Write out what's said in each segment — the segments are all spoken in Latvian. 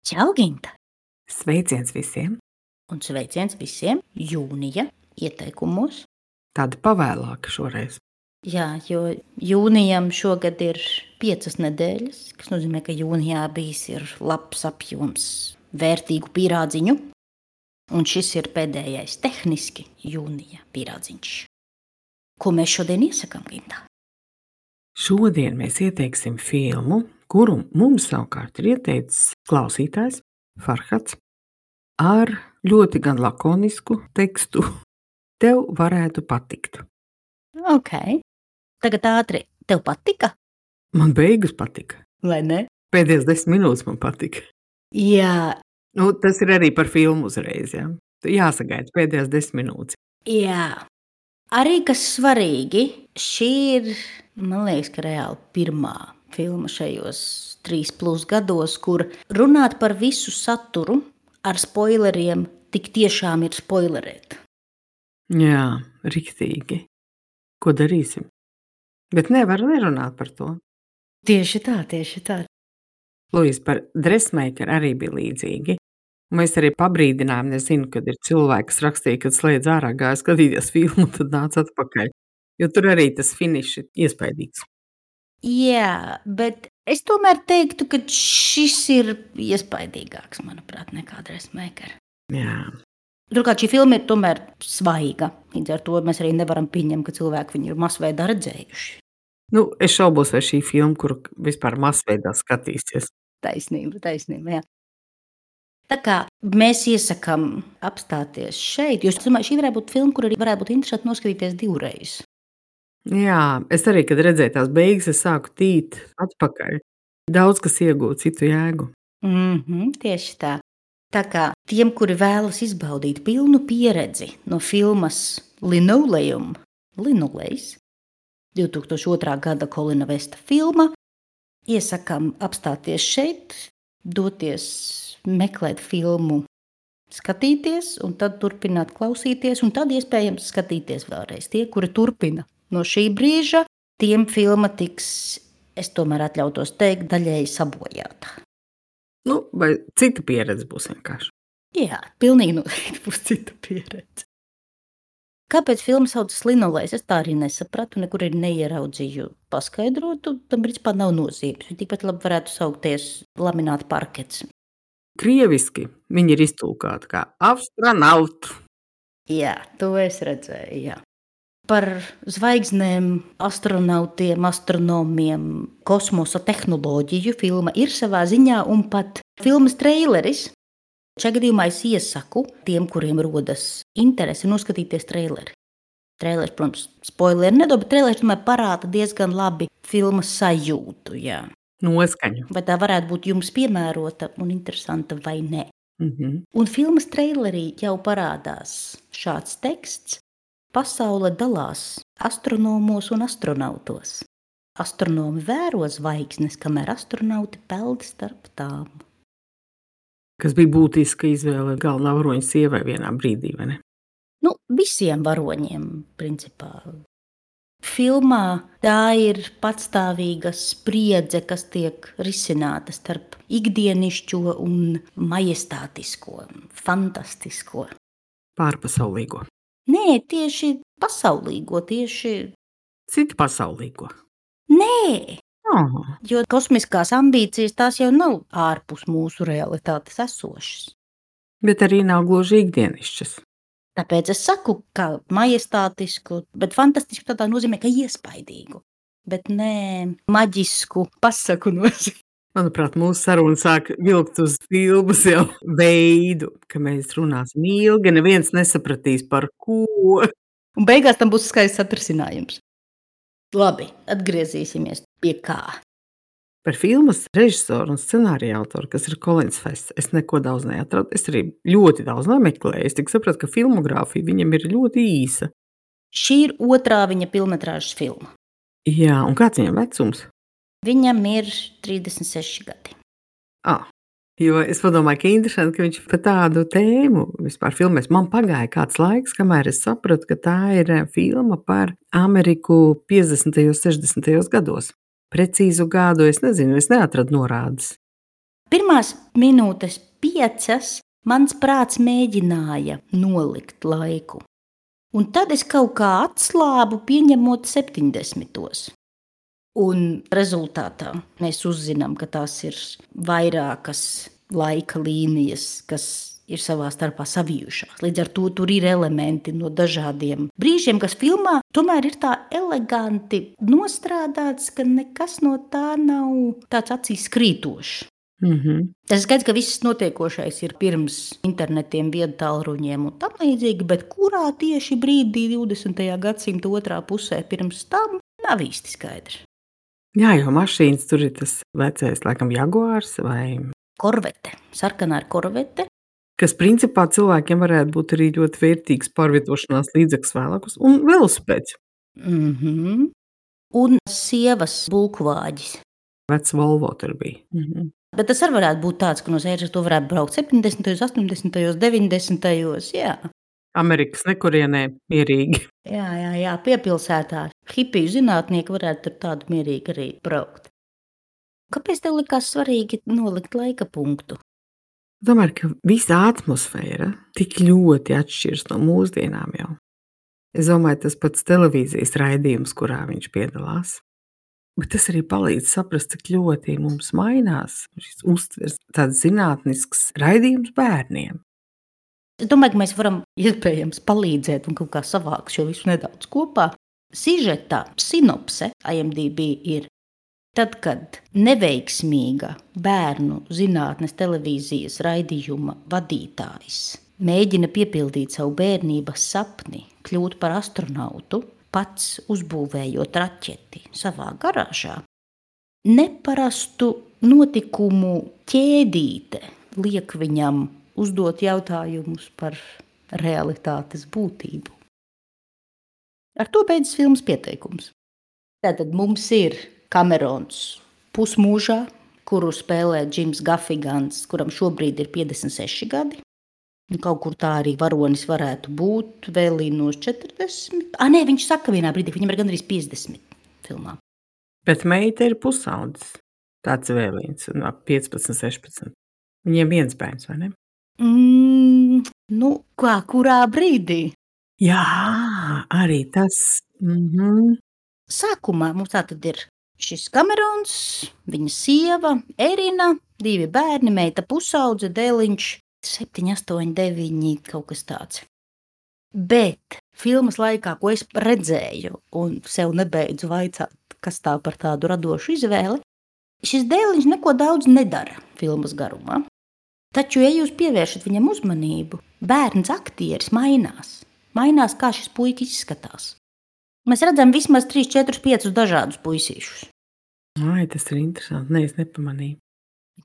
Čau, Ginta! Sveiciens visiem! Un sveiciens visiem jūnija ieteikumos. Tāda pavēlāka šoreiz. Jā, jo jūnijam šogad ir 5 nedēļas, kas nozīmē, ka jūnijā bijis ir labs apjoms vērtīgu pīrādziņu. Un šis ir pēdējais tehniski jūnija pīrādziņš. Ko mēs šodien iesakām, Ginta? Šodien mēs ieteiksim filmu, kuru mums savukārt ir ieteicis klausītājs Farhads ar ļoti gan lakonisku tekstu. Tev varētu patikt. Ok. Tagad ātri. Tev patika? Man beigas patika. Vai ne? Pēdējās 10 minūtes man patika. Jā. Tas ir arī par filmu uzreiz, jā. Jāsagaida pēdējās 10 minūtes. Jā. Arī kas svarīgi, šī ir, man liekas, ka reāli pirmā filma šajos 3+ gados, kur runāt par visu saturu ar spoileriem tik tiešām ir spoilerēt. Jā, riktīgi. Ko darīsim? Bet nevar nerunāt par to. Tieši tā, tieši tā. Luis, par Dressmaker arī bija līdzīgi. Mēs arī pabrīdinājām, nezinu, kad ir cilvēki, kas rakstīja, kad slēdz ārā gāja skatīties filmu, tad nāca atpakaļ. Jo tur arī tas finišs ir iespaidīgs. Jā, bet es tomēr teiktu, ka šis ir iespaidīgāks, manuprāt, nekā Dressmaker. Jā. Turklāt šī filma ir tomēr svaiga. Līdz ar to mēs arī nevaram pieņemt, ka cilvēki viņu ir masveidā redzējuši. Es šaubos, vai šī filma, kuru vispār masveidā skatīsies. Taisnība, jā. Tā kā mēs iesakām apstāties šeit, jo es domāju, šī varētu būt filma, kur arī varētu būt interesanti noskatīties 2 reizes. Jā, es arī, kad redzēju tās beigas, es sāku tīt atpakaļ. Daudz kas iegūst citu jēgu. Tieši tā. Tā kā tiem, kuri vēlas izbaudīt pilnu pieredzi no filmas Linolejs, 2002. gada Kolina Vesta filma, iesakām apstāties šeit, doties meklēt filmu, skatīties, un tad turpināt klausīties, un tad iespējams skatīties vēlreiz. Tie, kuri turpina no šī brīža, tiem filma tiks, es tomēr atļautos teikt, daļēji sabojāta. Vai cita pieredze būs vienkārši? Jā, pilnīgi noteikti būs cita pieredze. Kāpēc filma saucas Linolejs? Es tā arī nesapratu, nekur arī neieraudzīju paskaidrotu. Tam principā nav nozīmes. Tikpat labi varētu saukties lamināta parkets. Krieviski viņi ir iztulkāti kā astronautu. Jā, to es redzēju, jā. Par zvaigznēm, astronautiem, astronomiem, kosmosa tehnoloģiju filma ir savā ziņā un pat filmas treileris. Šajā gadījumā es iesaku tiem, kuriem rodas interese noskatīties treileri. Treileris, protams, spoileri nedod, bet treileris tomēr parāda diezgan labi filmas sajūtu, jā. Noskaņu. Vai tā varētu būt jums piemērota un interesanta vai ne? Un filmas treilerī jau parādās šāds teksts. Pasaule dalās astronomos un astronautos. Astronomi vēro zvaigznes, kamēr astronauti peld starp tām. Kas bija būtiska izvēle galvenā varoņa sievai vienā brīdī, vai ne? Visiem varoņiem, principā. Filmā tā ir patstāvīga spriedze, kas tiek risināta starp ikdienišķo un majestātisko, fantastisko. Pārpasaulīgo. Nē, tieši pasaulīgo, tieši... Citi pasaulīgo? Nē, Oh. jo kosmiskās ambīcijas tās jau nav ārpus mūsu realitātes esošas. Bet arī nav gluži ikdienišķas. Tāpēc es saku, ka majestātisku, bet fantastisku tādā nozīmē, ka iespaidīgu, bet ne maģisku pasaku nozīmē. Manuprāt, mūsu saruna sāk vilkt uz filmas jau veidu, ka mēs runāsim ilgi, neviens nesapratīs par ko. Un beigās tam būs skaists atrisinājums. Labi, atgriezīsimies pie kā. Par filmas režisoru un scenārija autoru, kas ir Kolins Fests, es neko daudz neatradu. Es arī ļoti daudz nemeklēju. Es tik sapratu, ka filmogrāfija viņam ir ļoti īsa. Šī ir 2. viņa filmetrāžas filma. Jā, un kāds viņam vecums? Viņam ir 36 gadi. Jo es padomāju, ka interesanti, ka viņš par tādu tēmu vispār filmēs. Man pagāja kāds laiks, kamēr es sapratu, ka tā ir filma par Ameriku 50. un 60. gados. Precīzu gadu es nezinu, es neatradu norādes. Pirmās minūtes 5 mans prāts mēģināja nolikt laiku. Un tad es kaut kā atslābu, pieņemot 70. Un rezultātā mēs uzzinām, ka tās ir vairākas laika līnijas, kas ir savā starpā savijušās. Līdz ar to tur ir elementi no dažādiem brīžiem, kas filmā tomēr ir tā eleganti nostrādāts, ka nekas no tā nav tāds acīs krītošs. Tas ir skaidrs, ka viss notiekošais ir pirms internetiem, viedtālruņiem un tam līdzīgi, bet kurā tieši brīdī 20. gadsimta otrā pusē pirms tam nav īsti skaidrs. Jā, jo mašīnas tur ir tas vecais, laikam, Jaguārs vai Korvete, sarkanā ir korvete. Kas principā cilvēkiem varētu būt arī ļoti vērtīgs pārvietošanās līdzeklis vēlākus, un velosipēds. Un sievas bulkvāģis. Vecs Volvo tur bija. Bet tas arī varētu būt tāds, ka no sēžas to varētu braukt 70., 80., 90. Jā. Amerikas nekurienē mierīgi. Jā, piepilsētā. Hipiju zinātnieki varētu tur tādu mierīgi arī braukt. Kāpēc tev likās svarīgi nolikt laika punktu? Domāju, ka visa atmosfēra tik ļoti atšķiras no mūsdienām jau. Es domāju, tas pats televīzijas raidījums, kurā viņš piedalās. Bet tas arī palīdz saprast, cik ļoti mums mainās šis uztvers, tāds zinātnisks raidījums bērniem. Es domāju, ka mēs varam iespējams palīdzēt un kaut kā savākt šo visu nedaudz kopā. Sižeta sinopse IMDb ir tad, kad neveiksmīga bērnu zinātnes televīzijas raidījuma vadītājs mēģina piepildīt savu bērnības sapni, kļūt par astronautu, pats uzbūvējot raķeti savā garāžā. Neparastu notikumu ķēdīte liek viņam uzdot jautājumus par realitātes būtību. Ar to beidzas filmas pieteikums. Tātad mums ir Kamerons pusmūžā, kuru spēlē Džims Gafigans, kuram šobrīd ir 56 gadi. Kaut kur tā arī varonis varētu būt, vēlīnos 40. Nē, viņš saka vienā brīdī, viņam ir gandrīz 50 filmā. Bet meita ir pusaudzis, tāds vēlīns, 15, 16. Viņiem viens bērns, vai ne? Kurā brīdī? Jā, arī tas. Sākumā mums tātad ir šis Kamerons, viņa sieva, Erina, 2 bērni, meita pusaudze, dēliņš, 7, 8, 9, kaut kas tāds. Bet filmas laikā, ko es redzēju un sev nebeidzu vaicāt, kas tā par tādu radošu izvēli, šis dēliņš neko daudz nedara filmas garumā. Taču, ja jūs pievēršat viņam uzmanību, bērns aktieris mainās. Mainās, kā šis puika izskatās. Mēs redzam vismaz 3, 4, 5 dažādus puisīšus. Ai, tas ir interesanti. Nē, es nepamanīju.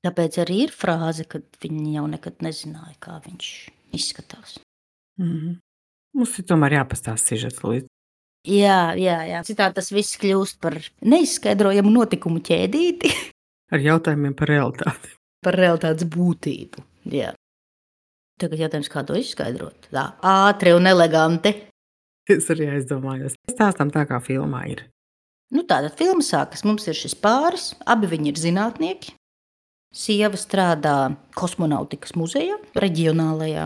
Tāpēc arī ir frāze, ka viņi jau nekad nezināja, kā viņš izskatās. Mums ir tomēr jāpastāsta sižets līdzi. Jā. Citādi tas viss kļūst par neizskaidrojamu notikumu ķēdīti. Ar jautājumiem par realitāti. Par realitātes būtību, jā. Tagad jautājums, kā to izskaidrot? Tā, ātri un eleganti. Es arī aizdomājos. Stāstam tā, kā filmā ir. Tātad filma sākas. Mums ir šis pāris, abi viņi ir zinātnieki. Sieva strādā kosmonautikas muzejā, reģionālajā.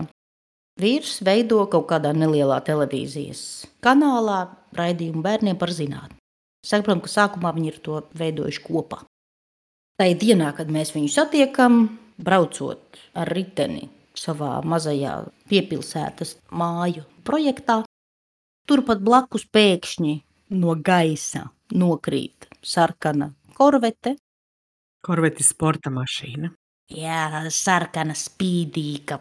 Vīrs veido kaut kādā nelielā televīzijas kanālā raidījumu bērniem par zinātni. Saprotam, ka sākumā viņi ir to veidojuši kopā. Tai dienā, kad mēs viņu satiekam, braucot ar riteni savā mazajā piepilsētas māju projektā, turpat blakus pēkšņi no gaisa nokrīt sarkana korvete. Korvete ir sporta mašīna. Jā, sarkana, spīdīga,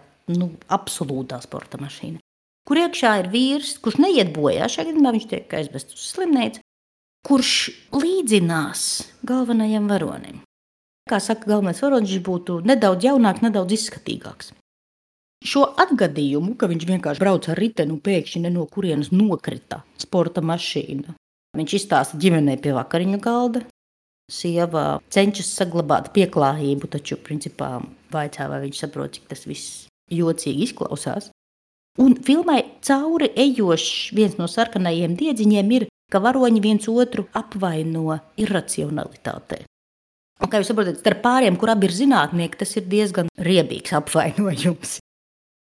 absolūtā sporta mašīna. Kur iekšā ir vīrs, kurš neiet bojā, šajā gadījumā viņš tiek aizvests uz slimnīcu, kurš līdzinās galvenajam varonim. Kā saka galvenais varonis, viņš būtu nedaudz jaunāks, nedaudz izskatīgāks. Šo atgadījumu, ka viņš vienkārši brauc ar riteni un pēkšņi no kurienes nokrita sporta mašīna, viņš izstāsta ģimenei pie vakariņu galda. Sieva cenšas saglabāt pieklājību, taču principā vaicā, vai viņš saprot, cik tas viss jocīgi izklausās. Un filmai cauri ejošs viens no sarkanajiem diedziņiem ir, ka varoņi viens otru apvaino iracionalitātē. Un, kā jūs saprotat, starp pāriem, kur abi ir zinātnieki, tas ir diezgan riebīgs apvainojums.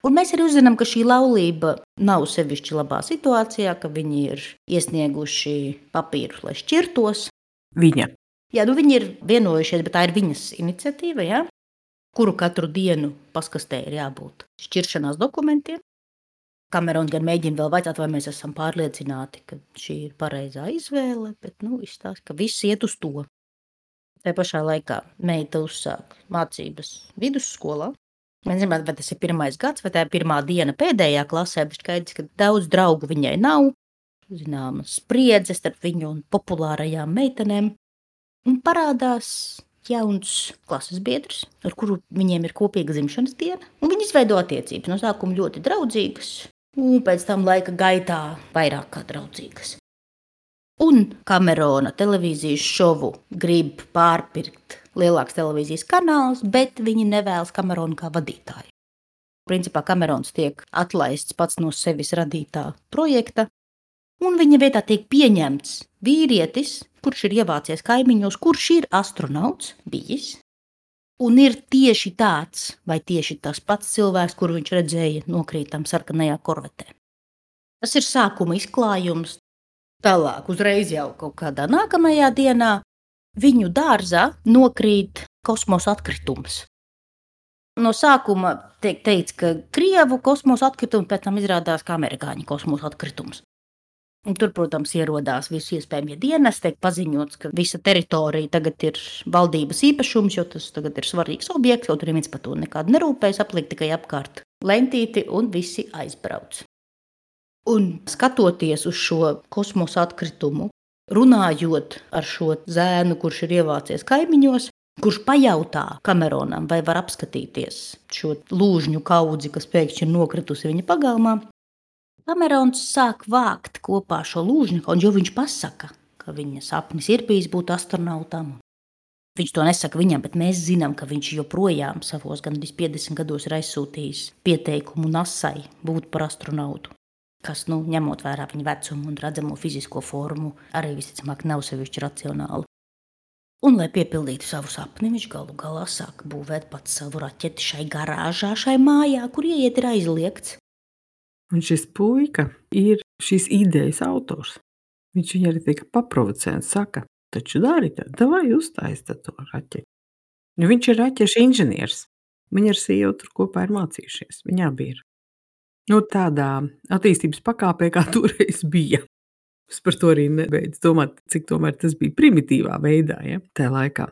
Un mēs arī uzzinām, ka šī laulība nav sevišķi labā situācijā, ka viņi ir iesnieguši papīrus, lai šķirtos. Viņa. Jā, viņi ir vienojušies, bet tā ir viņas iniciatīva, ja? Kuru katru dienu paskastē ir jābūt šķiršanās dokumentiem. Kamerons gan mēģina vēl vaicāt, vai mēs esam pārliecināti, ka šī ir pareizā izvēle, bet izstāsta, ka viss iet uz to. Tā pašā laikā meita uzsāk mācības vidusskolā. Mēs zinām, vai tas ir 1. gads, vai tā ir 1. diena pēdējā klasē, bet skaidrs, ka daudz draugu viņai nav. Zināmas spriedzes starp viņu un populārajām meitenēm. Un parādās jauns klases biedrs, ar kuru viņiem ir kopīga dzimšanas diena. Un viņi izveido attiecības. No sākuma ļoti draudzīgas, un pēc tam laika gaitā vairāk kā draudzīgas. Un Kamerona televīzijas šovu grib pārpirkt lielāks televīzijas kanāls, bet viņi nevēlas Kameronu kā vadītāju. Principā Kamerons tiek atlaists pats no sevis radītā projekta, un viņa vietā tiek pieņemts vīrietis, kurš ir ievācies kaimiņos, kurš ir astronauts bijis, un ir tieši tāds vai tieši tas pats cilvēks, kuru viņš redzēja nokrītam sarkanajā korvetē. Tas ir sākuma izklājums. Tālāk, uzreiz jau kaut kādā nākamajā dienā viņu dārzā nokrīt kosmosa atkritums. No sākuma tiek teikts, ka Krievu kosmosa atkritums, pēc tam izrādās, ka amerikāņu kosmosa atkritums. Un tur, protams, ierodās visi iespējamie dienesti, tiek paziņots, ka visa teritorija tagad ir valdības īpašums, jo tas tagad ir svarīgs objekts, kaut arī viens par to nekādu nerūpējas, apliek tikai apkārt lentīti un visi aizbrauc. Un skatoties uz šo kosmosa atkritumu, runājot ar šo zēnu, kurš ir ievācies kaimiņos, kurš pajautā Kameronam, vai var apskatīties šo lūžņu kaudzi, kas pēkšņi ir nokritusi viņa pagalmā, Kamerons sāk vākt kopā šo lūžņu kaudzi, jo viņš pasaka, ka viņa sapnis ir bijis būt astronautam. Viņš to nesaka viņam, bet mēs zinām, ka viņš joprojām savos gandrīz 50 gados ir aizsūtījis pieteikumu NASAi būt par astronautu, kas, ņemot vērā viņa vecumu un redzamo fizisko formu, arī visticamāk nav sevišķi racionāli. Un, lai piepildītu savu sapni, viņš galu galā sāk būvēt pats savu raķeti šai garāžā, šai mājā, kur ieiet ir aizliegts. Un šis puika ir šīs idejas autors. Viņš viņu arī tika paprovocē un saka, taču dari tad, vai uztaisi to raķeti. Viņš ir raķešu inženieris. Viņa ar sievu tur kopā ir mācījušies. Viņi abi ir. Tādā attīstības pakāpē, kā toreiz bija. Es par to arī nebeidzu domāt, cik tomēr tas bija primitīvā veidā, ja, tajā laikā.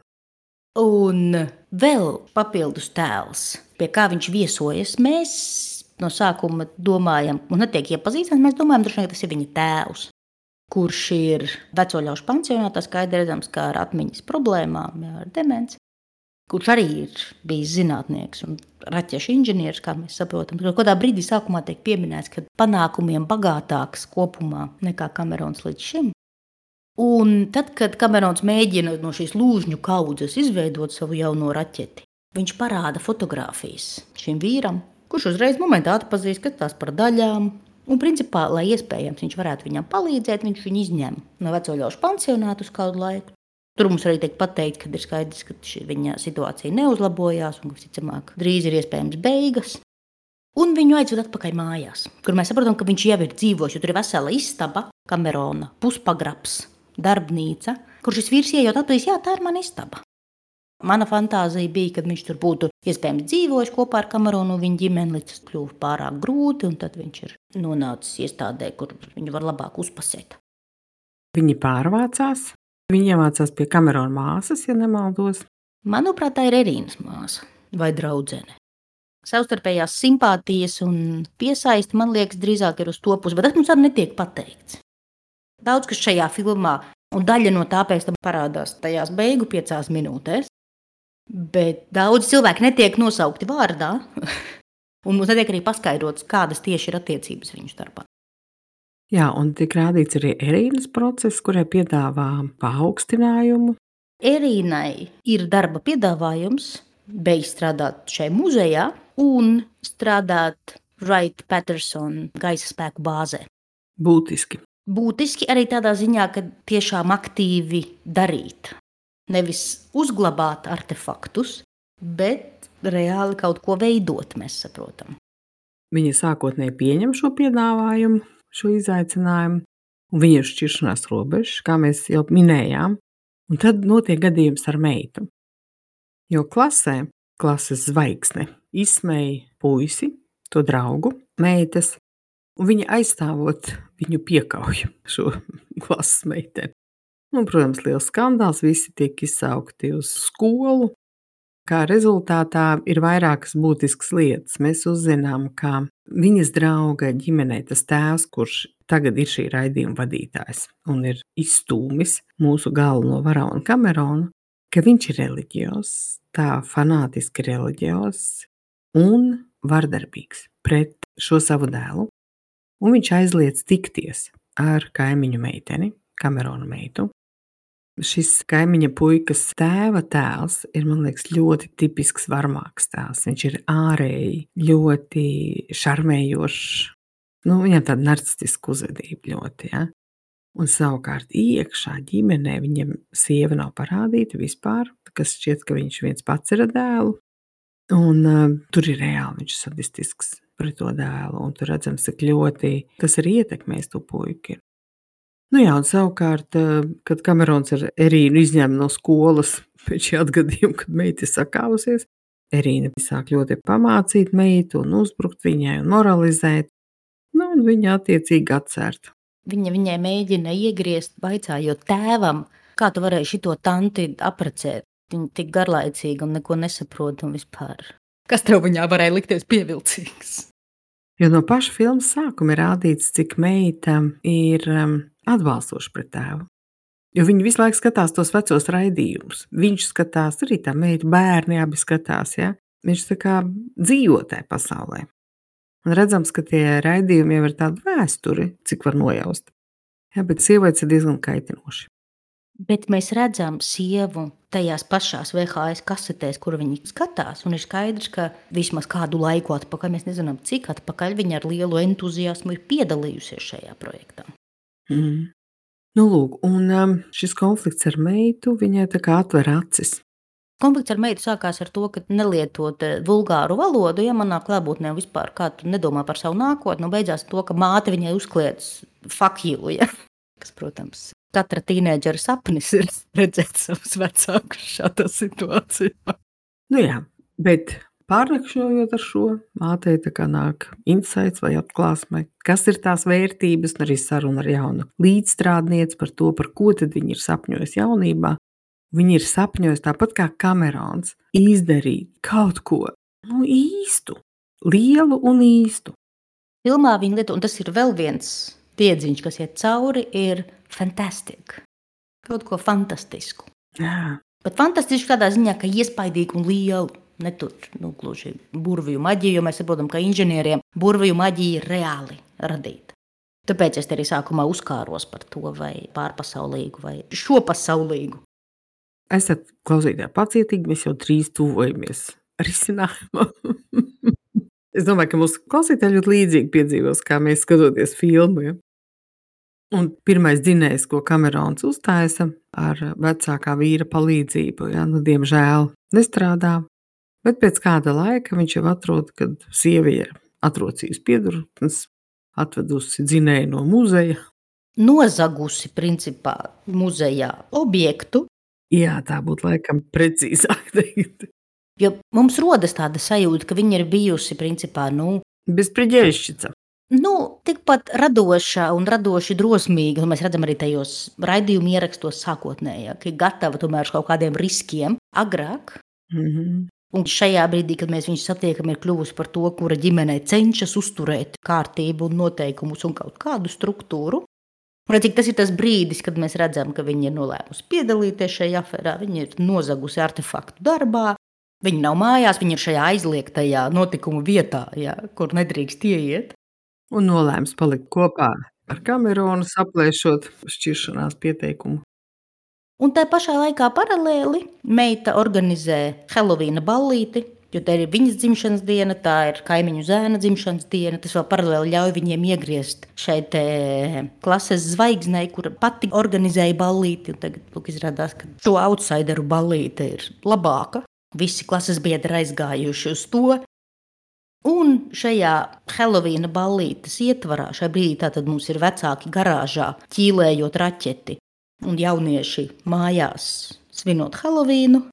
Un vēl papildus tēls, pie kā viņš viesojas, mēs no sākuma domājam, un netiek iepazīstams, mēs domājam, droši vien, ka tas ir viņa tēvs, kurš ir veco ļaužu pansionātā, skaidri redzams, kā ar atmiņas problēmām, ar demenci, kurš arī ir bijis zinātnieks un raķešu inženieris, kā mēs saprotam. Kādā brīdī sākumā tiek pieminēts, ka panākumiem bagātāks kopumā nekā Kamerons līdz šim. Un tad, kad Kamerons mēģina no šīs lūžņu kaudzes izveidot savu jauno raķeti, viņš parāda fotogrāfijas šim vīram, kurš uzreiz momentā atpazīst, ka tās par daļām. Un, principā, lai iespējams viņš varētu viņam palīdzēt, viņš viņu izņem no veco ļaužu pansionātu uz kādu laiku. Tur mums arī tiek pateikts, ka ir skaidrs, ka viņa situācija neuzlabojās un, visticamāk, drīz ir iespējams beigas. Un viņu aizved atpakaļ mājās, kur mēs saprotam, ka viņš jau ir dzīvojis, jo tur ir vesela istaba, Kamerona, puspagrabs, darbnīca, kur šis vīrs ieejot atpazīst, jā, tā ir mana istaba. Mana fantāzija bija, ka viņš tur būtu iespējams dzīvojis kopā ar Kameronu un viņa ģimeni, līdz tas kļuva pārāk grūti, un tad viņš ir nonācis iestādē, kur viņu var labāk uzpasēt. Viņi pārvācās, viņi iemācās pie Kamerona māsas, ja nemaldos. Manuprāt, tā ir Erīnas māsa vai draudzene. Savstarpējās simpātijas un piesaisti, man liekas, drīzāk ir uz to pusi, bet tas mums arī netiek pateikts. Daudz, kas šajā filmā, un daļa no tā pēc tam parādās tajās beigu 5 minūtēs, bet daudz cilvēki netiek nosaukti vārdā, un mums netiek arī paskaidrots, kādas tieši ir attiecības viņu starpā. Jā, un tiek rādīts arī Erīnas process, kurai piedāvā paaugstinājumu. Erīnai ir darba piedāvājums beigts strādāt šai muzejā un strādāt Wright-Patterson gaisa spēku bāzē. Būtiski. Būtiski arī tādā ziņā, ka tiešām aktīvi darīt. Nevis uzglabāt artefaktus, bet reāli kaut ko veidot, mēs saprotam. Viņa sākotnēji pieņem šo piedāvājumu, šo izaicinājumu, un viņa ir šķiršanās robežas, kā mēs jau minējām, un tad notiek gadījums ar meitu. Jo klasē, klases zvaigzne izsmēja puisi, to draugu, meitas, un viņa aizstāvot viņu piekauj šo klases meiteni. Un, protams, liels skandāls, visi tiek izsaukti uz skolu. Kā rezultātā ir vairākas būtiskas lietas. Mēs uzzinām, ka viņas drauga ģimenē tas tēvs, kurš tagad ir šī raidījuma vadītājs un ir izstūmis mūsu galveno varoni Kameronu, ka viņš ir reliģios, tā fanātiski reliģios un vardarbīgs pret šo savu dēlu. Un viņš aizliedz tikties ar kaimiņu meiteni, Kamerona meitu. Šis kaimiņa puikas tēva tēls ir, man liekas, ļoti tipisks varmāks tēls. Viņš ir ārēji ļoti šarmējošs. Viņam tāda narcistiska uzvedība ļoti, ja? Un savukārt iekšā ģimenē viņam sieva nav parādīta vispār, kas šķiet, ka viņš viens pats ir ar dēlu. Un tur ir reāli viņš sadistisks pret to dēlu. Un tur redzams, cik ļoti tas arī ietekmēs to puiku. Jā, un savukārt, kad Kamerons ar Erīnu izņem no skolas pēc šī atgadījuma, kad meita ir sakāvusies, Erīna sāk ļoti pamācīt meitu un uzbrukt viņai un moralizēt, un viņa attiecīgi atcert. Viņai mēģina iegriezt, vaicājot tēvam, kā tu varēji šito tanti aprecēt. Viņa tik garlaicīga un neko nesaprot un vispār. Kas tev viņā varēja likties pievilcīgs? Jo no paša filmas sākuma ir rādīts, cik meita ir atbalstoši pret tēvu. Jo viņi visu laiku skatās tos vecos raidījumus. Viņš skatās, arī tā meita, bērni abi skatās, ja? Viņš tā kā dzīvo tajā pasaulē. Un redzams, ka tie raidījumi jau ir tādi vēsturi, cik var nojaust. Ja, bet sievietes ir diezgan kaitinoši. Bet mēs redzam sievu tajās pašās VHS kasetēs, kur viņi skatās, un ir skaidrs, ka vismaz kādu laiku atpakaļ, mēs nezinām, cik atpakaļ viņa ar lielu entuziasmu ir piedalījusies šajā projektā. Lūk, un šis konflikts ar meitu viņai tā kā atver acis. Konflikts ar meitu sākās ar to, ka nelietot vulgāru valodu, ja manā klātbūtnē vispār kā tu nedomā par savu nākotni, beidzās to, ka māte viņai uzkliedz fuck you, ja? Kas, protams, katra tīnēdžera sapnis ir redzēt savus vecākus šādā situācijā. Jā, bet pārnakšņojot ar šo, mātei tā kā nāk insights vai atklāsme, kas ir tās vērtības, un arī saruna ar jaunu līdzstrādnieci par to, par ko tad viņi ir sapņojusi jaunībā. Viņi ir sapņojusi tāpat kā Kamerons izdarīt kaut ko īstu, lielu un īstu. Filmā viņa lieto, un tas ir vēl viens tiedziņš, kas iet cauri, ir fantastic. Kaut ko fantastisku. Jā. Bet fantastisku tādā ziņā, ka iespaidīgu un lielu. Ne tur, gluži burvju maģiju, jo mēs saprotam, ka inženieriem burvju maģija ir reāli radīta. Tāpēc es te arī sākumā uzkāros par to, vai pārpasaulīgu, vai šopasaulīgu. Esat klausītāji pacietīgi, mēs jau drīz tuvojamies risinājumam. Es domāju, ka mūsu klausītāji ļoti līdzīgi piedzīvos, kā mēs skatoties filmu. Ja? Un pirmais dzinējs, ko Kamerons uztaisa ar vecākā vīra palīdzību, ja? Diemžēl nestrādā. Bet pēc kāda laika viņš jau atrod, kad sievi ir atrocījusi piedurknes, atvedusi dzinēju no muzeja. Nozagusi, principā, muzejā objektu. Jā, tā būtu laikam precīzāk teikt. Jo mums rodas tāda sajūta, ka viņa ir bijusi, principā, bezpriģēšķica. Tikpat radoša un radoši drosmīga, un mēs redzam arī tajos raidījumu ierakstos sākotnējā, ka ir gatava tomēr uz kaut kādiem riskiem agrāk. Un šajā brīdī, kad mēs viņu satiekam, ir kļuvusi par to, kura ģimenei cenšas uzturēt kārtību un noteikumus un kaut kādu struktūru. Un cik tas ir tas brīdis, kad mēs redzam, ka viņa ir nolēmusi piedalīties šajā aferā, viņa ir nozagusi artefaktu darbā, viņa nav mājās, viņa ir šajā aizliegtajā notikumu vietā, ja, kur nedrīkst ieiet. Un nolēms palikt kopā ar Kameronu, saplēšot šķiršanās pieteikumu. Un tā pašā laikā paralēli meita organizē Helovīna ballīti Jo tā ir viņas dzimšanas diena, tā ir kaimiņu zēna dzimšanas diena. Tas vēl paralēli ļauj viņiem iegriezt šeit klases zvaigznei, kura pati organizēja ballīti. Un tagad izrādās, ka šo outsideru ballīte ir labāka. Visi klases biedri aizgājuši uz to. Un šajā Helovīna ballītes ietvarā, šajā brīdī tātad mums ir vecāki garāžā ķīlējot raķeti un jaunieši mājās svinot Helovīnu.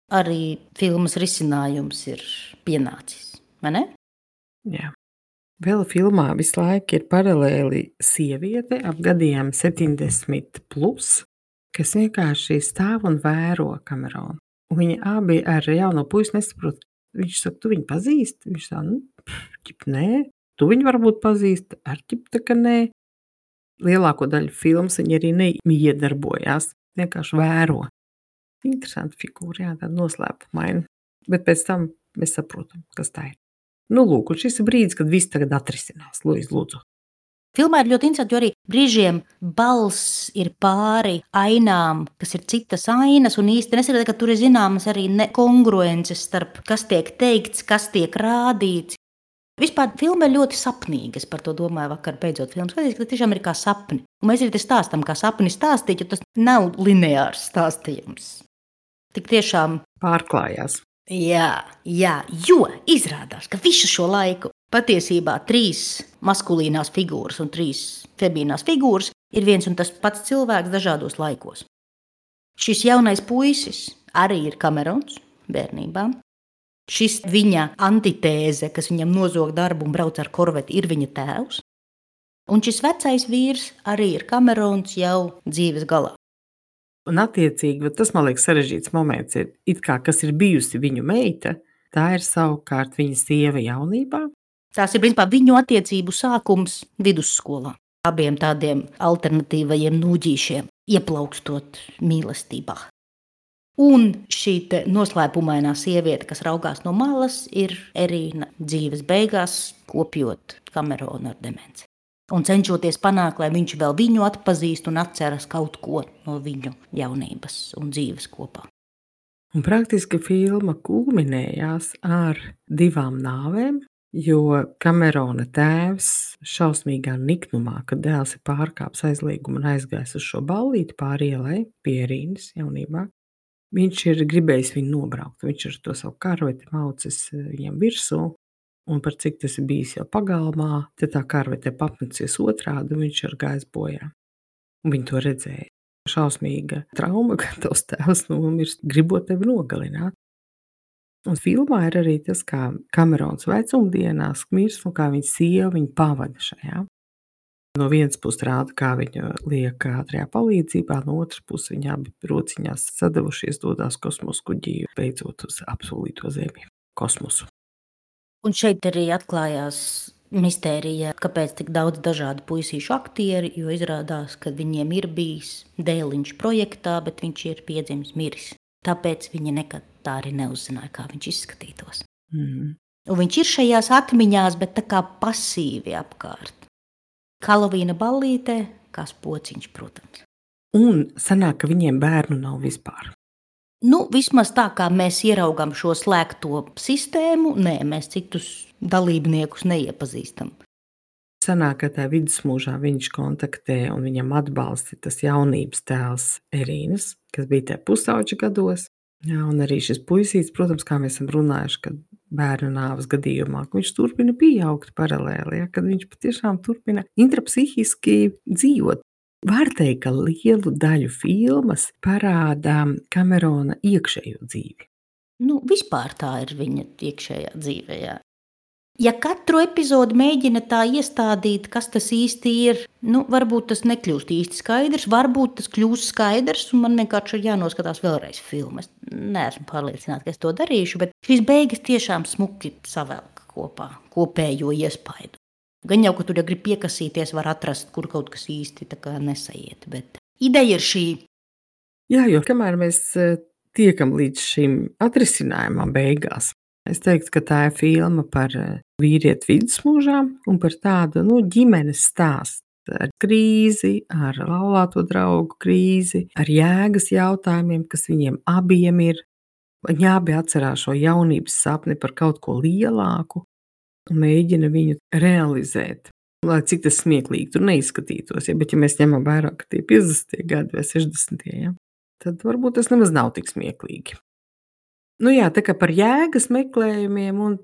Arī filmas risinājums ir pienācis, vai ne? Jā. Vēl filmā visu laiku ir paralēli sieviete ap gadiem 70+, kas vienkārši stāv un vēro Kameronu. Un viņi abi ar jauno puisi nesaprot. Viņš saka, tu viņu pazīsti? Viņš saka, nē. Tu viņu varbūt pazīsti? Ar ķip ka nē. Lielāko daļu filmas viņi arī neiedarbojās. Vienkārši vēro. Interesanti figūra, jā, tāda noslēpumaina. Bet pēc tam mēs saprotam, kas tā ir. Nu, lūk, un šis ir brīdis, kad viss tagad atrisinās. Lūdzu. Filmā ir ļoti interesanti, jo arī brīžiem balss ir pāri ainām, kas ir citas ainas, un īsti nesaprot, ka tur ir zināmas arī nekongruences starp kas tiek teikts, kas tiek rādīts. Vispār filma ir ļoti sapnīga. Es par to domāju vakar, beidzot filmu skatījos, ka tas tiešām ir kā sapni. Un mēs arī te stāstam, kā sapni stāstīt, jo tas nav lineārs stāstījums. Tik tiešām pārklājās. Jā, jo izrādās, ka visu šo laiku patiesībā 3 maskulīnās figūras un 3 femīnās figūras ir viens un tas pats cilvēks dažādos laikos. Šis jaunais puisis arī ir Kamerons bērnībā. Šis viņa antitēze, kas viņam nozog darbu un brauc ar korveti, ir viņa tēvs. Un šis vecais vīrs arī ir Kamerons jau dzīves galā. Un attiecīgi, tas man liekas sarežģīts moments ir, it kā kas ir bijusi viņu meita, tā ir savukārt viņa sieva jaunībā. Tās ir principā viņu attiecību sākums vidusskolā. Abiem tādiem alternatīvajiem nūģīšiem ieplaukstot mīlestībā. Un šī noslēpumainā sieviete, kas raugās no malas, ir Erīna dzīves beigās, kopjot Kameronu ar demenci. Un cenšoties panākt, lai viņš vēl viņu atpazīst un atceras kaut ko no viņu jaunības un dzīves kopā. Un praktiski filma kulminējās ar 2 nāvēm, jo Kamerona tēvs šausmīgā niknumā, kad dēls ir pārkāpis aizliegumu un aizgājis uz šo ballīti pāri ielai pie Erīnas jaunībā. Viņš ir gribējis viņu nobraukt. Viņš ar to savu karveti maucis viņam virsū, un par cik tas ir bijis jau pagalmā, tad tā karvete papmecies otrādi, un viņš ir gājis bojā. Un viņi to redzēja. Šausmīga trauma, ka tavs tēvs nomirst, gribot tevi nogalināt. Un filmā ir arī tas, kā Kamerons vecumdienās mirst, un kā viņa sieva viņu pavada šajā. No vienas puses rāda, kā viņa liek ātrajā palīdzībā, no otras puses viņa abi rociņās sadavušies dodās kosmosa kuģī, beidzot uz apsolīto zemi, kosmosu. Un šeit arī atklājās mistērija, kāpēc tik daudz dažādu puisīšu aktieri, jo izrādās, ka viņiem ir bijis dēliņš projektā, bet viņš ir piedzimis miris. Tāpēc viņi nekad tā arī neuzzināja, kā viņš izskatītos. Un viņš ir šajās atmiņās, bet tā kā pasīvi apkārt. Helovīna ballītē, kā pociņš, protams. Un sanāk, ka viņiem bērnu nav vispār. Vismaz tā, kā mēs ieraugām šo slēgto sistēmu, nē, mēs citus dalībniekus neiepazīstam. Sanāk, ka tajā vidusmūžā viņš kontaktē un viņam atbalsta tas jaunības tēls Erīnas, kas bija tajā pusauģa gados. Jā, un arī šis puisīts, protams, kā mēs esam runājuši, kad bērnu nāves gadījumā, ka viņš turpina pieaugt paralēli, ja, kad viņš patiešām turpina intrapsihiski dzīvot. Var teikt, ka lielu daļu filmas parādā Kamerona iekšējo dzīvi. Vispār tā ir viņa iekšējā dzīve, jā. Ja katru epizodi mēģina tā iestādīt, kas tas īsti ir, varbūt tas nekļūst īsti skaidrs, varbūt tas kļūst skaidrs, un man vienkārši ir jānoskatās vēlreiz filmu. Es neesmu pārliecināta, ka es to darīšu, bet šīs beigas tiešām smuki savelk kopā kopējo iespaidu. Gan jau, ka tur, ja grib piekasīties, var atrast, kur kaut kas īsti tā kā nesaiet, bet ideja ir šī. Jā, jo kamēr mēs tiekam līdz šim atrisinājumam beigās, es teiktu, ka tā ir filma par vīrieti vidusmūžā un par tādu ģimenes stāstu ar krīzi, ar laulāto draugu krīzi, ar jēgas jautājumiem, kas viņiem abiem ir. Viņa abi atcerās šo jaunības sapni par kaut ko lielāku un mēģina viņu realizēt. Lai cik tas smieklīgi tur neizskatītos, ja, bet ja mēs ņemam vērā, ka tie 50. gadi vai 60. Ja, tad varbūt tas nemaz nav tik smieklīgi. Nu jā, tā kā par jēgas meklējumiem un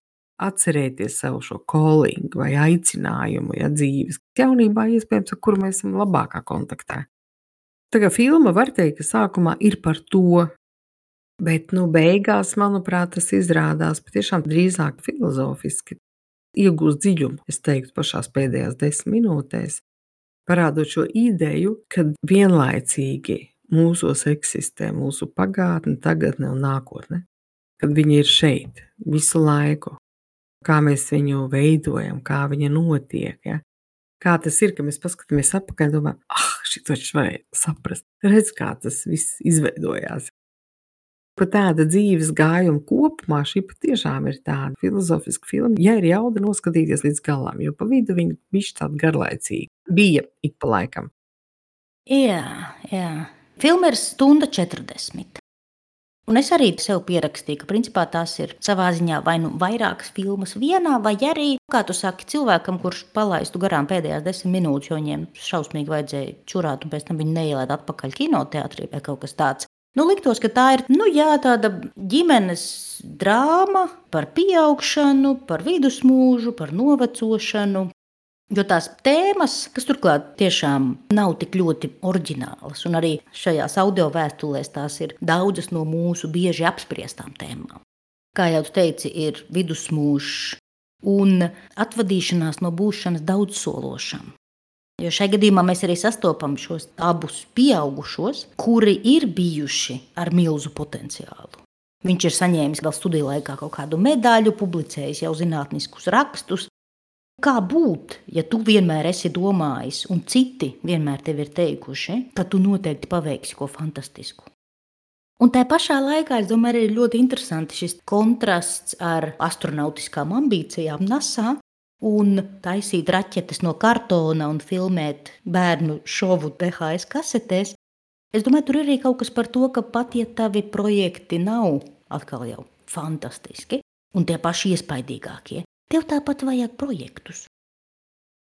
atcerēties savu šo callingu vai aicinājumu, ja, dzīves jaunībā iespējams, ar kuru mēs esam labākā kontaktā. Tā kā filma var teikt, ka sākumā ir par to, bet beigās, manuprāt, tas izrādās patiešām drīzāk filozofiski. Iegūst dziļumu, es teiktu, pašās pēdējās 10 minūtēs, parādot šo ideju, ka vienlaicīgi mūsos eksistē mūsu pagātne, tagadne un nākotne, kad viņi ir šeit visu laiku, kā mēs viņu veidojam, kā viņa notiek, ja? Kā tas ir, ka mēs paskatāmies atpakaļ un domājam, šito taču varēja saprast, redz, kā tas viss izveidojās. Par tāda dzīves gājuma kopumā šī patiešām ir tāda filozofiska filma. Ja ir jauda noskatīties līdz galam, jo pa vidu viņa bišķi tāda garlaicīga. Bija ik pa laikam. Jā. Filma ir 1:40. Un es arī sev pierakstīju, ka principā tās ir savā ziņā vai nu vairākas filmas vienā, vai arī, kā tu saki, cilvēkam, kurš palaistu garām pēdējās 10 minūtes, jo viņiem šausmīgi vajadzēja čurāt, un pēc tam viņi neielēd atpakaļ kinoteātrī vai kaut kas tāds. Liktos, ka tā ir tāda ģimenes drāma par pieaugšanu, par vidusmūžu, par novecošanu. Jo tās tēmas, kas turklāt tiešām nav tik ļoti oriģinālas, un arī šajās audio vēstulēs tās ir daudzas no mūsu bieži apspriestām tēmām. Kā jau tu teici, ir vidusmūžs un atvadīšanās no būšanas daudzsološam. Jo šajā gadījumā mēs arī sastopam šos abus pieaugušos, kuri ir bijuši ar milzu potenciālu. Viņš ir saņēmis vēl studiju laikā kaut kādu medaļu, publicējis jau zinātniskus rakstus. Kā būt, ja tu vienmēr esi domājis, un citi vienmēr tev ir teikuši, ka tu noteikti paveiksi ko fantastisku? Un tā pašā laikā, es domāju, arī ļoti interesanti šis kontrasts ar astronautiskām ambīcijām NASA un taisīt raķetes no kartona un filmēt bērnu šovu DHS kasetēs. Es domāju, tur ir arī kaut kas par to, ka pat ja tavi projekti nav atkal jau fantastiski un tie paši iespaidīgākie, tev tāpat vajag projektus.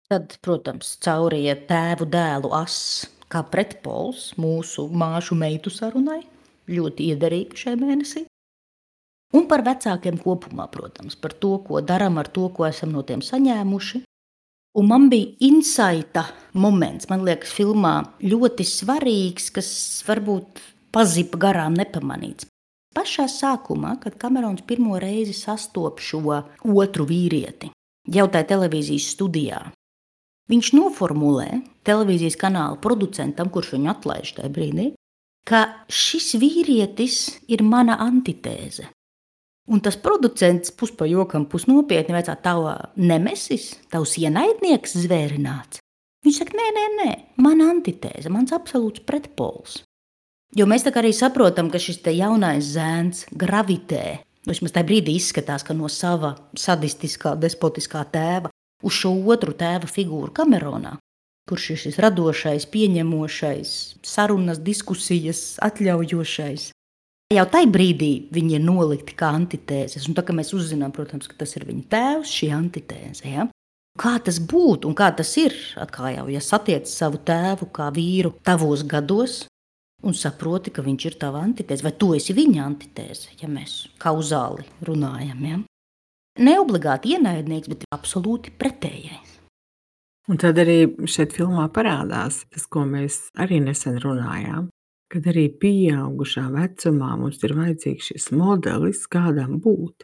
Tad, protams, cauri iet tēvu dēlu ass kā pretpols mūsu māšu meitu sarunai, ļoti iederīgi šajā mēnesī. Un par vecākiem kopumā, protams, par to, ko darām ar to, ko esam no tiem saņēmuši. Un man bija insaita moments, man liekas, filmā ļoti svarīgs, kas varbūt pazipa garām nepamanīts. Pašā sākumā, kad Kamerons pirmo reizi sastop šo otru vīrieti, jau tajā televīzijas studijā, viņš noformulē televīzijas kanāla producentam, kurš viņu atlaiž tajā brīdī, ka šis vīrietis ir mana antitēze. Un tas producents puspajokam, pusnopietni vaicā, tava nemesis, tavs ienaidnieks zvērināts. Viņš saka, nē, mana antitēze, mans absolūts pretpols. Jo mēs tā kā arī saprotam, ka šis te jaunais zēns gravitē, vismaz tajā brīdī izskatās, ka no sava sadistiskā, despotiskā tēva uz šo otru tēva figūru Kameronā, kurš ir šis radošais, pieņemošais, sarunas, diskusijas, atļaujošais. Jau tajā brīdī viņi ir nolikti kā antitēzes, un tā kā mēs uzzinām, protams, ka tas ir viņa tēvs, šī antitēze. Ja? Kā tas būtu un kā tas ir, atkal jau, ja satiec savu tēvu kā vīru tavos gados un saproti, ka viņš ir tava antitēze, vai tu esi viņa antitēze, ja mēs kauzāli runājam. Ja? Neobligāti ienaidnieks, bet absolūti pretējais. Un tad arī šeit filmā parādās tas, ko mēs arī nesen runājām, kad arī pieaugušā vecumā mums ir vajadzīgs šis modelis, kādam būt.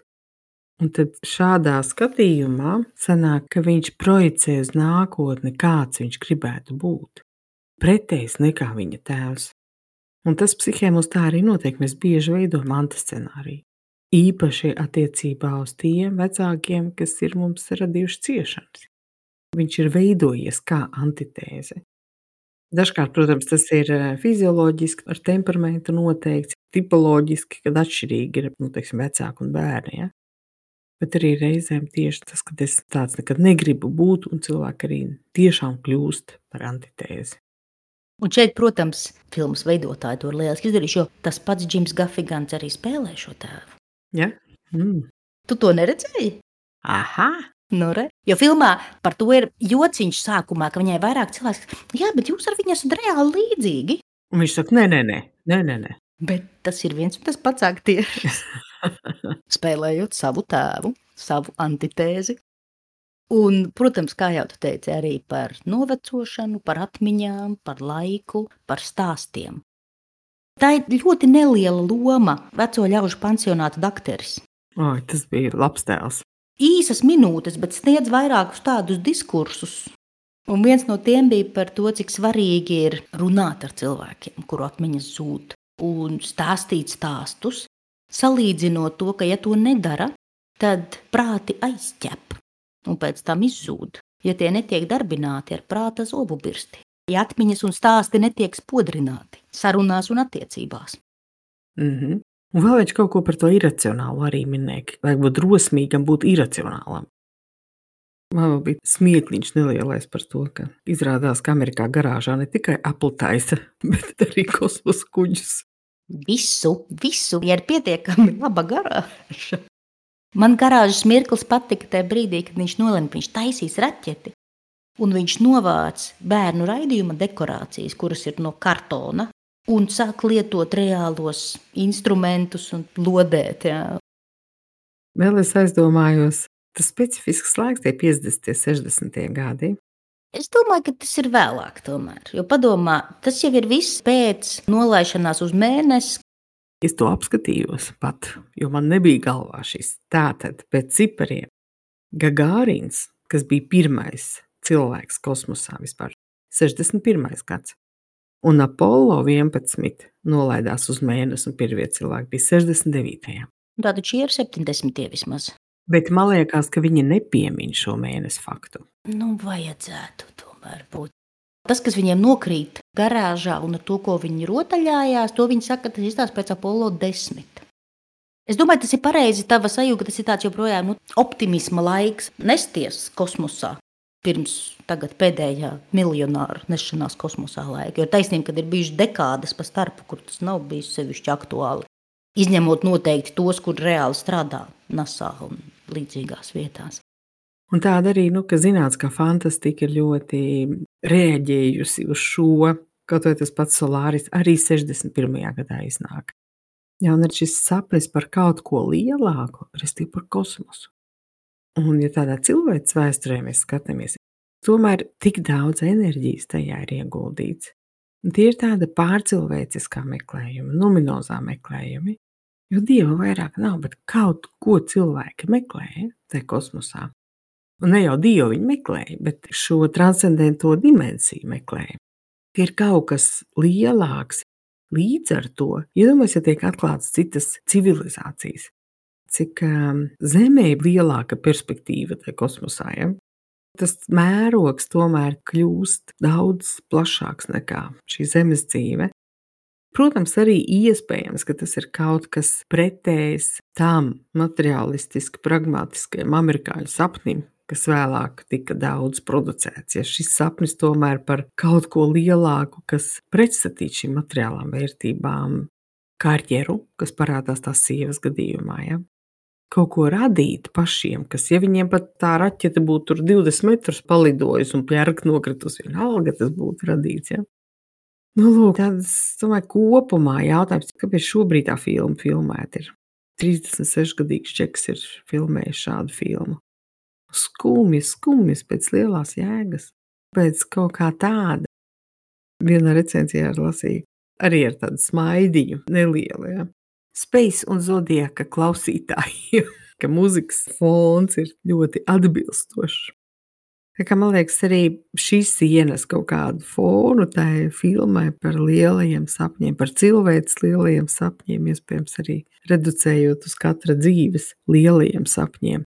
Un tad šādā skatījumā sanāk, ka viņš projicē uz nākotni, kāds viņš gribētu būt. Pretējs nekā viņa tēvs. Un tas psihē mums tā arī notiek, mēs bieži veidojam antiscenāriju. Īpaši attiecībā uz tiem vecākiem, kas ir mums radījuši ciešanas. Viņš ir veidojies kā antitēze. Dažkārt, protams, tas ir fizioloģiski, ar temperamentu noteikts, tipoloģiski, kad atšķirīgi ir vecāki un bērni. Ja? Bet arī reizēm tieši tas, ka es tāds nekad negribu būt, un cilvēki arī tiešām kļūst par antitēzi. Un šeit, protams, filmas veidotāji to ir lieliski izdarījuši, jo tas pats Džims Gafigans arī spēlē šo tēvu. Ja? Tu to neredzēji? Aha! Nu, re. Jo filmā par to ir jociņš sākumā, ka viņai vairāk cilvēks, jā, bet jūs ar viņu esat reāli līdzīgi. Un viņš saka, nē. Bet tas ir viens un tas pats aktieris. Spēlējot savu tēvu, savu antitēzi. Un, protams, kā jau tu teici, arī par novecošanu, par atmiņām, par laiku, par stāstiem. Tā ir ļoti neliela loma veco ļaužu pansionāta dakteris. Oi, tas bija labs tēls. Īsas minūtes, bet sniedz vairākus tādus diskursus. Un viens no tiem bija par to, cik svarīgi ir runāt ar cilvēkiem, kuru atmiņas zūd, un stāstīt stāstus, salīdzinot to, ka ja to nedara, tad prāti aizķep un pēc tam izzūd, ja tie netiek darbināti ar prāta zobu birsti. Ja atmiņas un stāsti netiek spodrināti sarunās un attiecībās. Un vēl viņš kaut ko par to iracionālu arī minēja. Vajag būt drosmīgam, būt iracionālam. Man bija smiekliņš nelielais par to, ka izrādās, ka Amerikā garāžā ne tikai Apple taisa, bet arī kosmosa kuģus. Visu, ja ir pietiekami laba garāža. Man garāžas mirklis patika tajā brīdī, kad viņš nolēma, ka viņš taisīs raķeti. Un viņš novāc bērnu raidījuma dekorācijas, kuras ir no kartona, un sāk lietot reālos instrumentus un lodēt. Jā. Vēl es aizdomājos, tas specifisks laiks, tie 50, 60 gadi. Es domāju, ka tas ir vēlāk tomēr. Jo padomā, tas jau ir viss pēc nolaišanās uz mēnesi. Es to apskatījos pat, jo man nebija galvā šis. Tātad pēc cipariem Gagārins, kas bija pirmais cilvēks kosmosā vispār, 61. gads. Un Apollo 11 nolaidās uz mēnesi un pirmie cilvēki bija 69. Tātad šie ir 70 vismaz. Bet man liekas, ka viņi nepiemin šo mēnesi faktu. Nu, vajadzētu tomēr būt. Tas, kas viņiem nokrīt garāžā un ar to, ko viņi rotaļājās, to viņi saka, tas izstās pēc Apollo 10. Es domāju, tas ir pareizi tava sajūta, ka tas ir tāds joprojām optimisma laiks nesties kosmosā. Pirms tagad pēdējā miljonāru nešanās kosmosā laika. Jo taisnība, kad ir bijuši dekādes pa starpu, kur tas nav bijis sevišķi aktuāli. Izņemot noteikti tos, kur reāli strādā NASA un līdzīgās vietās. Un tāda arī, ka zinātniskā fantastika ir ļoti reaģējusi uz šo, kaut vai tas pats Solāris arī 61. gadā iznāk. Jā, un ir šis sapnis par kaut ko lielāku, restīvi par kosmosu. Un, ja tādā cilvēces vēsturē mēs skatāmies, tomēr tik daudz enerģijas tajā ir ieguldīts. Un tie ir tāda pārcilvēciskā meklējuma, numinozā meklējumi, jo Dieva vairāk nav, bet kaut ko cilvēki meklē tajā kosmosā. Un ne jau Dievu viņi meklēja, bet šo transcendento dimensiju meklēja. Ir kaut kas lielāks. Līdz ar to, iedomājieties, ja tiek atklātas citas civilizācijas, cik Zemē ir lielāka perspektīva tajā kosmosā. Ja? Tas mērogs tomēr kļūst daudz plašāks nekā šī Zemes dzīve. Protams, arī iespējams, ka tas ir kaut kas pretējs tam materiālistiski pragmatiskajam amerikāņu sapnim, kas vēlāk tika daudz producēts. Ja šis sapnis tomēr par kaut ko lielāku, kas pretstatīt šīm materiālām vērtībām, karjeru, kas parādās tās sievas gadījumā, ja? Kaut ko radīt pašiem, kas, ja viņiem pat tā raķete būtu tur 20 metrus palidojusi un pērk nokritus, vienalga tas būtu radīts, ja? Nu, lūk, tāds, domāju, kopumā jautājums, kāpēc šobrīd tā filma filmēta ir. 36-gadīgs čeks ir filmējis šādu filmu. Skumjas pēc lielās jēgas, pēc kaut kā tāda. Vienā recenzijā lasīju, arī ar tādu smaidiņu nelielu, ja. Space un Zodiaka klausītājiem, ka muzikas fons ir ļoti atbilstošs. Tā kā man liekas, arī šīs ienes kaut kādu fonu tai filmai par lielajiem sapņiem, par cilvēces lielajiem sapņiem, iespējams arī reducējot uz katra dzīves lielajiem sapņiem.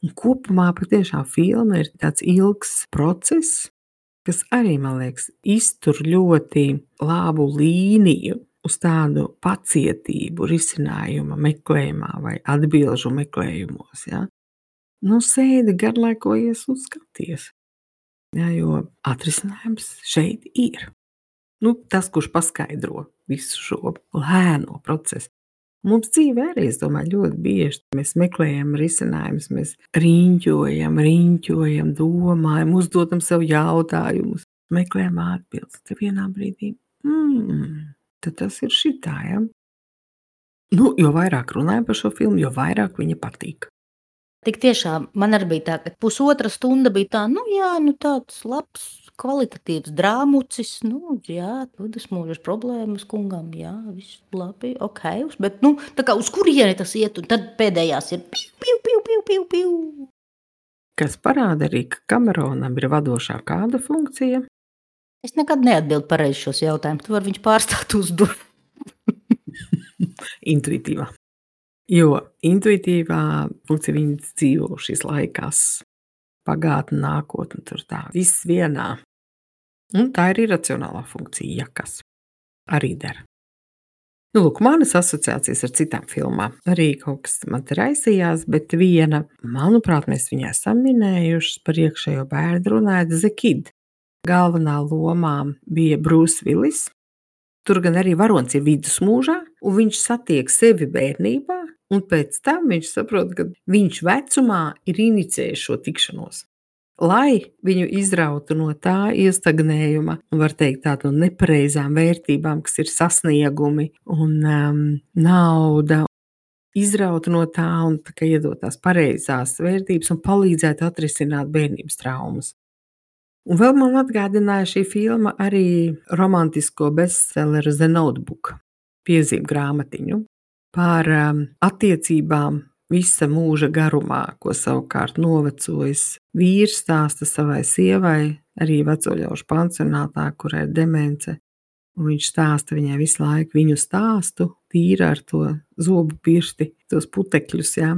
Un kopumā patiešām filma ir tāds ilgs process, kas arī, man liekas, iztur ļoti labu līniju uz tādu pacietību risinājuma meklējumā vai atbilžu meklējumos. Ja? Nu, sēdi, garlaikojies un skaties. Ja, jo atrisinājums šeit ir. Tas, kurš paskaidro visu šo lēno procesu. Mums dzīvē arī, es domāju, ļoti bieži mēs meklējam risinājumus, mēs riņķojam, domājam, uzdodam sev jautājumus, meklējam atbildes. Te vienā brīdī, tad tas ir šitā, ja? Jo vairāk runājam par šo filmu, jo vairāk viņa patīk. Tik tiešām man arī bija tā, ka pusotra stunda bija tā, tāds labs, kvalitatīvs drāmucis, tas mūžas problēmas kungam, viss labi, ok, bet, tā kā uz kurieni tas iet, un tad pēdējās ir piu. Kas parāda arī, ka Kameronam ir vadošā kāda funkcija? Es nekad neatbildu pareizi šos jautājumus, tu vari viņš pārstāt uzdot. Intuitīvā. Jo intuitīvā funkcija viņas dzīvo šīs laikās, pagātne, nākotne, tur tā, viss vienā. Un tā ir iracionālā funkcija, ja kas arī der. Lūk, manas asociācijas ar citām filmām arī kaut kas man te raisījās, bet viena, manuprāt, mēs viņai esam minējušas par iekšējo bērnu runājot, The Kid. Galvenā lomā bija Bruce Willis. Tur gan arī varonis ir vidusmūžā, un viņš satiek sevi bērnībā, un pēc tam viņš saprot, ka viņš vecumā ir inicijējis šo tikšanos. Lai viņu izrautu no tā iestagnējuma, var teikt tādu nepareizām vērtībām, kas ir sasniegumi un nauda, izrautu no tā un tā kā iedot tās pareizās vērtības un palīdzētu atrisināt bērnības traumas. Un vēl man atgādināja šī filma arī romantisko bestselleru The Notebook, piezīmu grāmatiņu par attiecībām visa mūža garumā, ko savukārt novecojis vīrs stāsta savai sievai, arī vecoļaužu pansionātā, kurai ir demence. Un viņš stāsta viņai visu laiku viņu stāstu, tīra ar to zobu pirsti, tos putekļus, jā.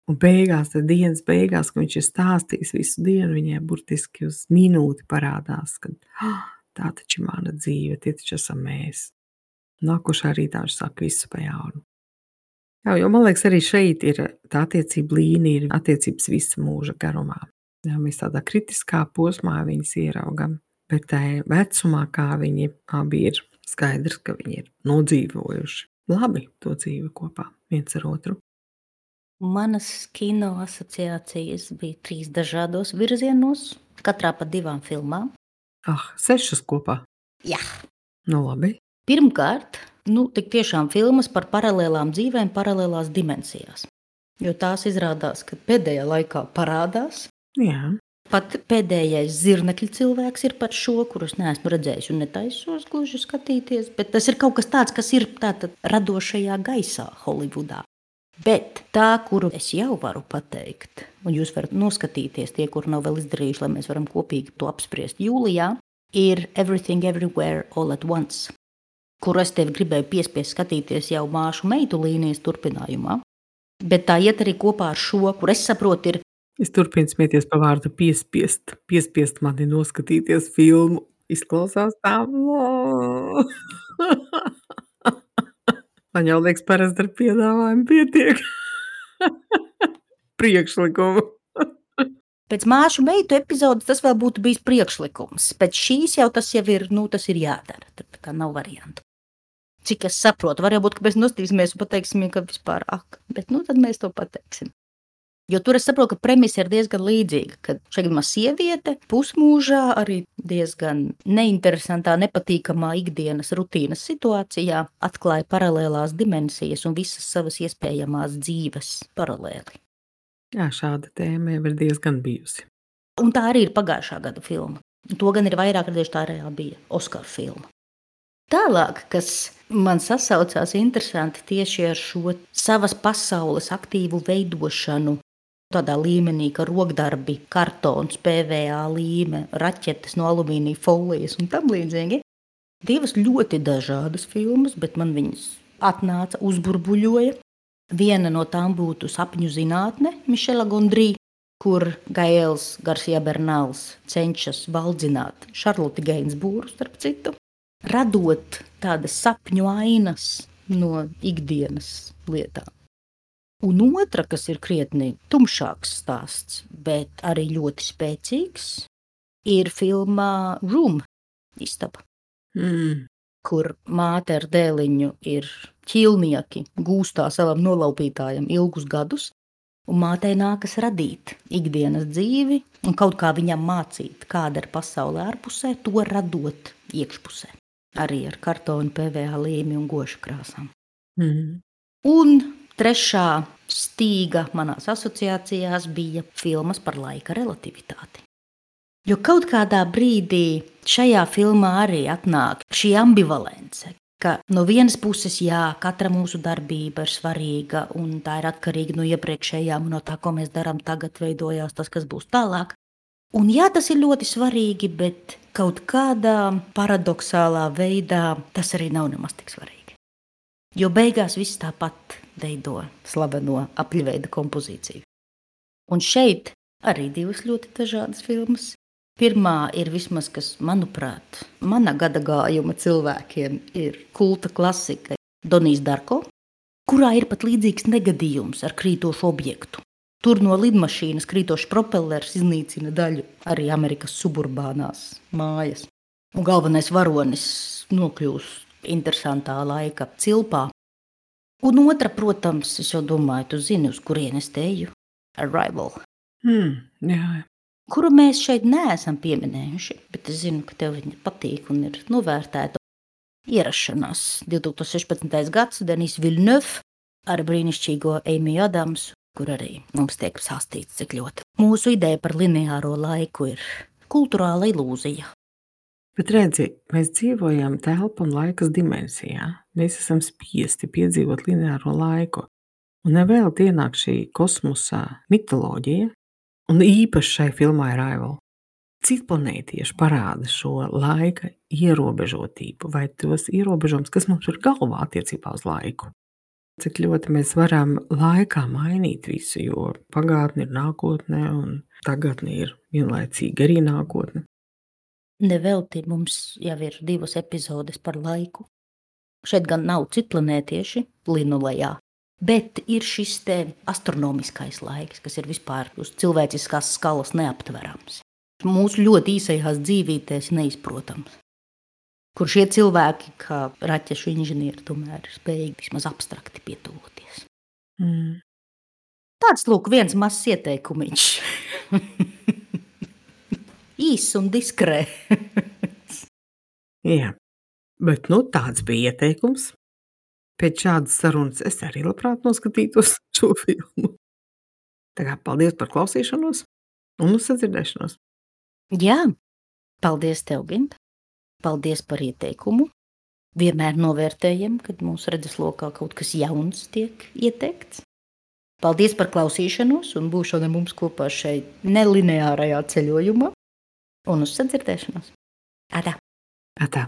Un beigās, tad dienas beigās, kad viņš ir stāstījis visu dienu, viņai burtiski uz minūti parādās, ka tā taču ir mana dzīve, tie taču esam mēs. Nākošā rītā viņš saka visu pa jaunu. Jo man liekas, arī šeit ir tā attiecība līnija, ir attiecības visa mūža garumā. Mēs tādā kritiskā posmā viņas ieraugam, bet tā vecumā, kā viņi abi ir, skaidrs, ka viņi ir nodzīvojuši labi to dzīvi kopā viens ar otru. Manas kino asociācijas bija 3 dažādos virzienos, katrā pa 2 filmām. 6 kopā? Jā. Labi. Pirmkārt, tik tiešām filmas par paralēlām dzīvēm, paralēlās dimensijās. Jo tās izrādās, ka pēdējā laikā parādās. Jā. Pat pēdējais zirnekļu cilvēks ir par šo, kurus neesmu redzējis un netaisos gluži skatīties, bet tas ir kaut kas tāds, kas ir tātad radošajā gaisā Holivudā. Bet tā, kuru es jau varu pateikt, un jūs varat noskatīties tie, kuri nav vēl izdarījuši, lai mēs varam kopīgi to apspriest jūlijā, ir Everything Everywhere All at Once, kuru es tevi gribēju piespiest skatīties jau Māšu meitu līnijas turpinājumā. Bet tā iet arī kopā ar šo, kur es saprotu ir. Es turpinu smieties pa vārdu piespiest. Piespiest mani noskatīties filmu. Izklausās tā. Man jau liekas, parasti ar piedāvājumu pietiek. Priekšlikumu. Pēc Māšu meitu epizodes tas vēl būtu bijis priekšlikums. Pēc šīs jau tas ir, tas ir jādara. Tad kā nav variantu. Cik es saprotu, var jau būt, ka mēs nostīsimies un pateiksim, ka vispār bet tad mēs to pateiksim. Jo tur es saprotu, ka premisa ir diezgan līdzīga, kad šeit gadījumā sieviete pusmūžā arī diezgan neinteresantā, nepatīkamā ikdienas rutīnas situācijā atklāja paralēlās dimensijas un visas savas iespējamās dzīves paralēli. Jā, šāda tēma jau ir diezgan bijusi. Un tā arī ir pagājušā gada filma. To gan ir vairāk redzējuši, tā reāli bija Oskara filma. Tālāk, kas man sasaucās interesanti tieši ar šo savas pasaules aktīvu veidošanu, tādā līmenī, ka rokdarbi, kartons, PVA līme, raķetes no alumīnija folijas un tam līdzīgi. 2 ļoti dažādas filmas, bet man viņas atnāca, uzburbuļoja. Viena no tām būtu Sapņu zinātne Mišela Gondrī, kur Gaels Garcia Bernals cenšas valdzināt Šarloti Gainsbūru, starp citu, radot tādas sapņu ainas no ikdienas lietām. Un otra, kas ir krietni tumšāks stāsts, bet arī ļoti spēcīgs, ir filmā Room, Istaba. kur māte ar dēliņu ir ķīlnieki, gūstā savam nolaupītājam ilgus gadus, un mātei nākas radīt ikdienas dzīvi un kaut kā viņam mācīt, kāda ir pasaule ārpusē, to radot iekšpusē. Arī ar kartonu, PVA līmi un gošu krāsām. Un trešā stīga manās asociācijās bija filmas par laika relativitāti. Jo kaut kādā brīdī šajā filmā arī atnāk šī ambivalence, ka no vienas puses, jā, katra mūsu darbība ir svarīga un tā ir atkarīga no iepriekšējām un no tā, ko mēs darām tagad, veidojās tas, kas būs tālāk. Un jā, tas ir ļoti svarīgi, bet kaut kādā paradoxālā veidā tas arī nav nemaz tik svarīgi. Jo beigās viss tāpat veido slaveno apļveida kompozīciju. Un šeit arī divas ļoti dažādas filmas. Pirmā ir vismaz, kas, manuprāt, mana gada gājuma cilvēkiem ir kulta klasika Donijs Darko, kurā ir pat līdzīgs negadījums ar krītošu objektu. Tur no lidmašīnas krītošs propellers iznīcina daļu arī Amerikas suburbānās mājas. Un galvenais varonis nokļūst interesantā laika cilpā. Un otra, protams, es jau domāju, tu zini, uz kurienes te eju, Arrival. Jā. Kuru mēs šeit neesam pieminējuši, bet es zinu, ka tev viņa patīk un ir novērtēta. Ierašanās 2016. gads, Denis Villeneuve ar brīnišķīgo Amy Adams, kur arī mums tiek stāstīts, cik ļoti. Mūsu ideja par lineāro laiku ir kulturāla ilūzija. Bet redzi, mēs dzīvojam telpa un laikas dimensijā. Mēs esam spiesti piedzīvot lineāro laiku. Un nevēl ienāk šī kosmosa mitoloģija, un īpaši šai filmai Arrival. Citplanētieši parāda šo laika ierobežotību vai tos ierobežojumus, kas mums ir galvā attiecībā uz laiku. Cik ļoti mēs varam laikā mainīt visu, jo pagātne ir nākotne un tagadne ir vienlaicīgi arī nākotne. Nevelti mums jau ir 2 epizodes par laiku. Šeit gan nav citplanētieši linulejā, bet ir šis te astronomiskais laiks, kas ir vispār uz cilvēciskās skalas neaptverams. Mūsu ļoti īsajās dzīvītēs neizprotams. Kur šie cilvēki, kā raķešu inženieri, tomēr ir spējīgi vismaz abstrakti pietuvoties. Tāds, lūk, viens mazs ieteikumiņš. Īss un diskrēts. Jā, bet tāds bija ieteikums. Pēc šādas sarunas es arī labprāt noskatītos šo filmu. Tā kā paldies par klausīšanos un uz sadzirdēšanos. Jā, paldies tev, Ginta. Paldies par ieteikumu. Vienmēr novērtējam, kad mūsu redzeslokā kaut kas jauns tiek ieteikts. Paldies par klausīšanos un būšanu mums kopā šeit nelineārajā ceļojumā. Un uz sadzirdēšanos. Atā! Atā!